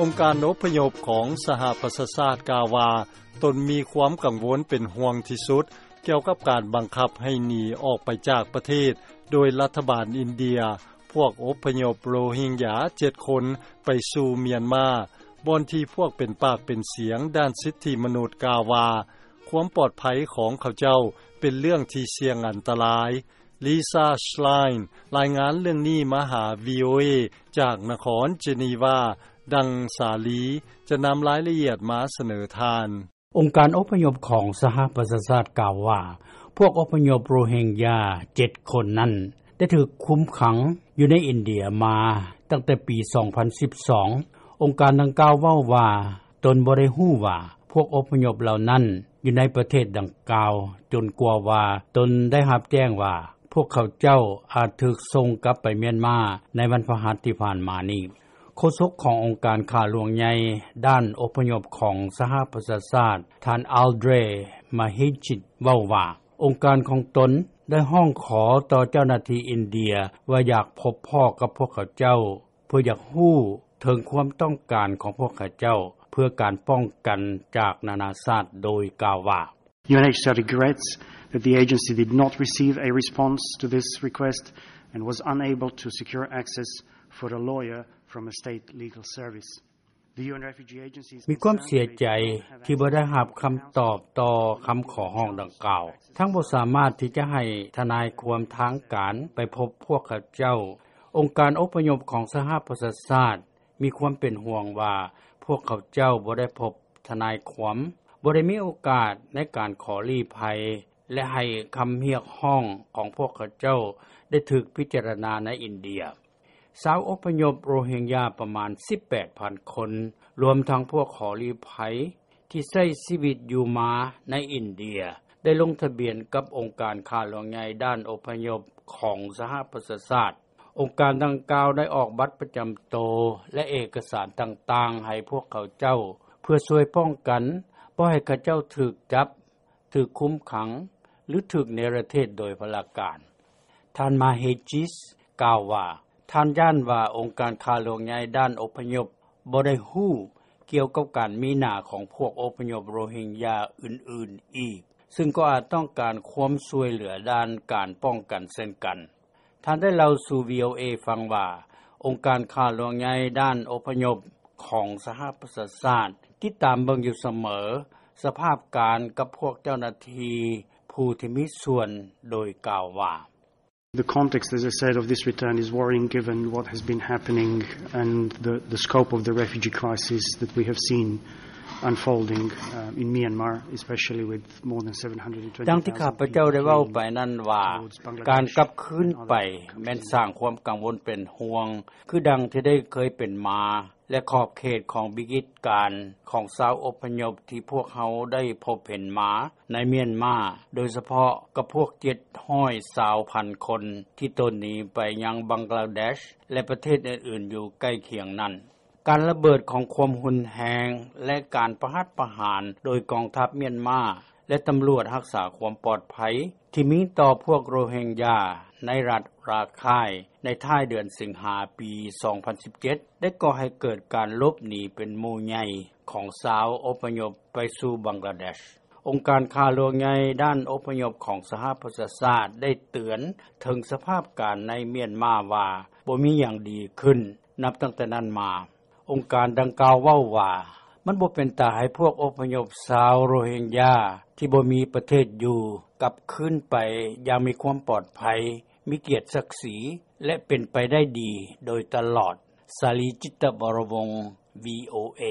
ອົງການອົບພະຍົບຂອງສະຫະປະຊາຊາດກ່າວວ່າ ຕົນມີຄວາມກັງວົນເປັນຫ່ວງທີ່ສຸດ ກ່ຽວກັບການບັງຄັບໃຫ້ໜີອອກໄປຈາກປະເທດ ໂດຍລັດຖະບານອິນເດຍ ພວກອົບພະຍົບໂຣຮິງຢາເຈັດຄົນ ໄປສູ່ມຽນມາ ບ່ອນທີ່ພວກເປັນປາກເປັນສຽງດ້ານສິດທິມະນຸດກ່າວວ່າ ຄວາມປອດໄພຂອງເຂົາເຈົ້າເປັນເລື່ອງທີ່ສ່ຽງອັນຕະລາຍ. ລີຊາ ຊລາຍ ລາຍງານເລື່ອງນີ້ມາຫາ ວີໂອເອ ຈາກນະຄອນເຈນີວາ. ດັ່ງສາລີຈະນຳລາຍລະອຽດມາສະເໜີທ່ານ. ອົງການອົບພະຍົບຂອງສະຫະປະຊາຊາດກ່າວວ່າ ພວກອົບພະຍົບໂຣຮິງຢາເຈັດຄົນນັ້ນ ໄດ້ຖືກຄຸມຂັງຢູ່ໃນອິນເດຍມາຕັ້ງແຕ່ປີສອງພັນສິບສອງ. ອົງການດັ່ງກ່າວເວົ້າວ່າ ຕົນບໍ່ໄດ້ຮູ້ວ່າພວກອົບພະຍົບເຫຼົ່ານັ້ນຢູ່ໃນປະເທດດັ່ງກ່າວ ຈົນກວ່າວ່າຕົນໄດ້ຮັບແຈ້ງວ່າ ພວກເຂົາເຈົ້າອາດຖືກສົ່ງກັບໄປມຽນມາໃນວັນພະຫັດທີ່ຜ່ານມານີ້. ໂຄສົກຂອງອົງການຂ້າຫຼວງໃຫຍ່ດ້ານອົບພະຍົບຂອງສະຫະປະຊາຊາດ ທ່ານ ອາລເດຣ ມາຮິດ ເວົ້າວ່າ ອົງການຂອງຕົນໄດ້ຮ້ອງຂໍຕໍ່ເຈົ້າໜ້າທີ່ອິນເດຍວ່າຢາກພົບພໍ້ກັບພວກເຂົາເຈົ້າ ເພື່ອຢາກຮູ້ເຖິງຄວາມຕ້ອງການຂອງພວກເຂົາເຈົ້າ ເພື່ອການປ້ອງກັນຈາກນານາຊາດ ໂດຍກ່າວວ່າ "UNHCR regrets that the agency did not receive a response to this request and was unable to secure access for a lawyer from a state legal service." The UN refugee agency is ມີຄວາມເສຍໃຈທີ່ບໍ່ໄດ້ຮັບຄຳຕອບຕໍ່ຄຳຂໍຮ້ອງດັ່ງກ່າວ ທັງບໍ່ສາມາດທີ່ຈະໃຫ້ທະນາຍຄວາມທາງການໄປພົບພວກເຂົາເຈົ້າ. ອົງການອົບພະຍົບຂອງສະຫະປະຊາຊາດ ມີຄວາມເປັນຫ່ວງວ່າ ພວກເຂົາເຈົ້າບໍ່ໄດ້ພົບທະນາຍຄວາມ, ບໍ່ໄດ້ມີໂອກາດໃນການຂໍລີ້ໄພ ແລະ ໃຫ້ຄຳຮຽກຮ້ອງຂອງພວກເຂົາເຈົ້າໄດ້ຖືກພິຈາລະນາໃນອິນເດຍ. ຊາວອົບພະຍົບໂຣຮິງຢາປະມານສິບແປດພັນຄົນ, ລວມທັງພວກຂໍລີ້ໄພທີ່ໃຊ້ຊີວິດຢູ່ມາໃນອິນເດຍ ໄດ້ລົງທະບຽນກັບອົງການຂ້າຫຼວງໃຫຍ່ດ້ານອົບພະຍົບຂອງສະຫະປະຊາຊາດ. ອົງການດັ່ງກ່າວໄດ້ອອກບັດປະຈຳໂຕ ແລະ ເອກະສານຕ່າງໆໃຫ້ພວກເຂົາເຈົ້າ ເພື່ອຊ່ວຍປ້ອງກັນບໍ່ໃຫ້ເຂົາເຈົ້າຖືກຈັບ, ຖືກຄຸມຂັງ ຫຼື ຖືກເນລະເທດໂດຍພະລາການ. ທ່ານ ມາເຮຈິສ ກ່າວວ່າ ທ່ານຢ້ານວ່າອົງການຂ້າຫຼວງໃຫຍ່ດ້ານອົບພະຍົບບໍ່ໄດ້ຮູ້ກ່ຽວກັບການມີໜ້າຂອງພວກອົບພະຍົບໂຣຮິງຢາອື່ນໆອີກ, ຊຶ່ງກໍອາດຕ້ອງການຄວາມຊ່ວຍເຫຼືອດ້ານການປ້ອງກັນເຊັ່ນກັນ. ທ່ານໄດ້ເລົ່າສູ່ ວີໂອເອ ຟັງວ່າ ອົງການຂ້າຫຼວງໃຫຍ່ດ້ານອົບພະຍົບຂອງສະຫະປະຊາຊາດ ຕິດຕາມເບິ່ງຢູ່ສະເໝີສະພາບການກັບພວກເຈົ້າໜ້າທີ່ຜູ້ທີ່ມີສ່ວນ ໂດຍກ່າວວ່າ "The context, as I said, of this return is worrying given what has been happening and the, the scope of the refugee crisis that we have seen unfolding, uh, in Myanmar, especially with more than seven hundred and twenty thousand people fleeing towards Bangladesh and other countries." ດັ່ງທີ່ຂ້າພະເຈົ້າໄດ້ເວົ້າໄປນັ້ນວ່າ ການກັບຄືນໄປແມ່ນສ້າງຄວາມກັງວົນເປັນຫ່ວງ ຄືດັ່ງທີ່ໄດ້ເຄີຍເປັນມາ ແລະ ຂອບເຂດຂອງວິກິດການຂອງຊາວອົບພະຍົບທີ່ພວກເຮົາໄດ້ພົບເຫັນມາໃນມຽນມາ, ໂດຍສະເພາະກັບພວກເຈັດຮ້ອຍຊາວພັນຄົນທີ່ໂຕນໜີໄປຍັງບັງກລາເດຊ ແລະ ປະເທດອື່ນໆຢູ່ໃກ້ຄຽງນັ້ນ. ການລະເບີດຂອງຄວາມຮຸນແຮງ ແລະ ການປະຫັດປະຫານໂດຍກອງທັບມຽນມາ ແລະ ຕຳຫຼວດຮັກສາຄວາມປອດໄພທີ່ມີຕໍ່ພວກໂຣຮິງຢາໃນລັດຣາຄາຍໃນທ້າຍເດືອນສິງຫາປີສອງພັນສິບເຈັດ ໄດ້ກໍ່ໃຫ້ເກີດການຫຼົບໜີເປັນໝູ່ໃຫຍ່ຂອງຊາວອົບພະຍົບໄປສູ່ບັງກລາເດຊ. ອົງການຂ້າຫຼວງໃຫຍ່ດ້ານອົບພະຍົບຂອງສະຫະປະຊາຊາດໄດ້ເຕືອນເຖິງສະພາບການໃນມຽນມາວ່າບໍ່ມີຫຍັງດີຂຶ້ນ ນັບຕັ້ງແຕ່ນັ້ນມາ. ອົງການດັ່ງກ່າວເວົ້າວ່າ ມັນບໍ່ເປັນຕາໃຫ້ພວກອົບພະຍົບຊາວໂຣຮິງຢາທີ່ບໍ່ມີປະເທດຢູ່ກັບຄືນໄປຢ່າງມີຄວາມປອດໄພ, ມີກຽດສັກສີ ແລະ ເປັນໄປໄດ້ດີໂດຍຕະຫຼອດ. ສາລີ ຈິດຕະວໍລະວົງ ວີໂອເອ.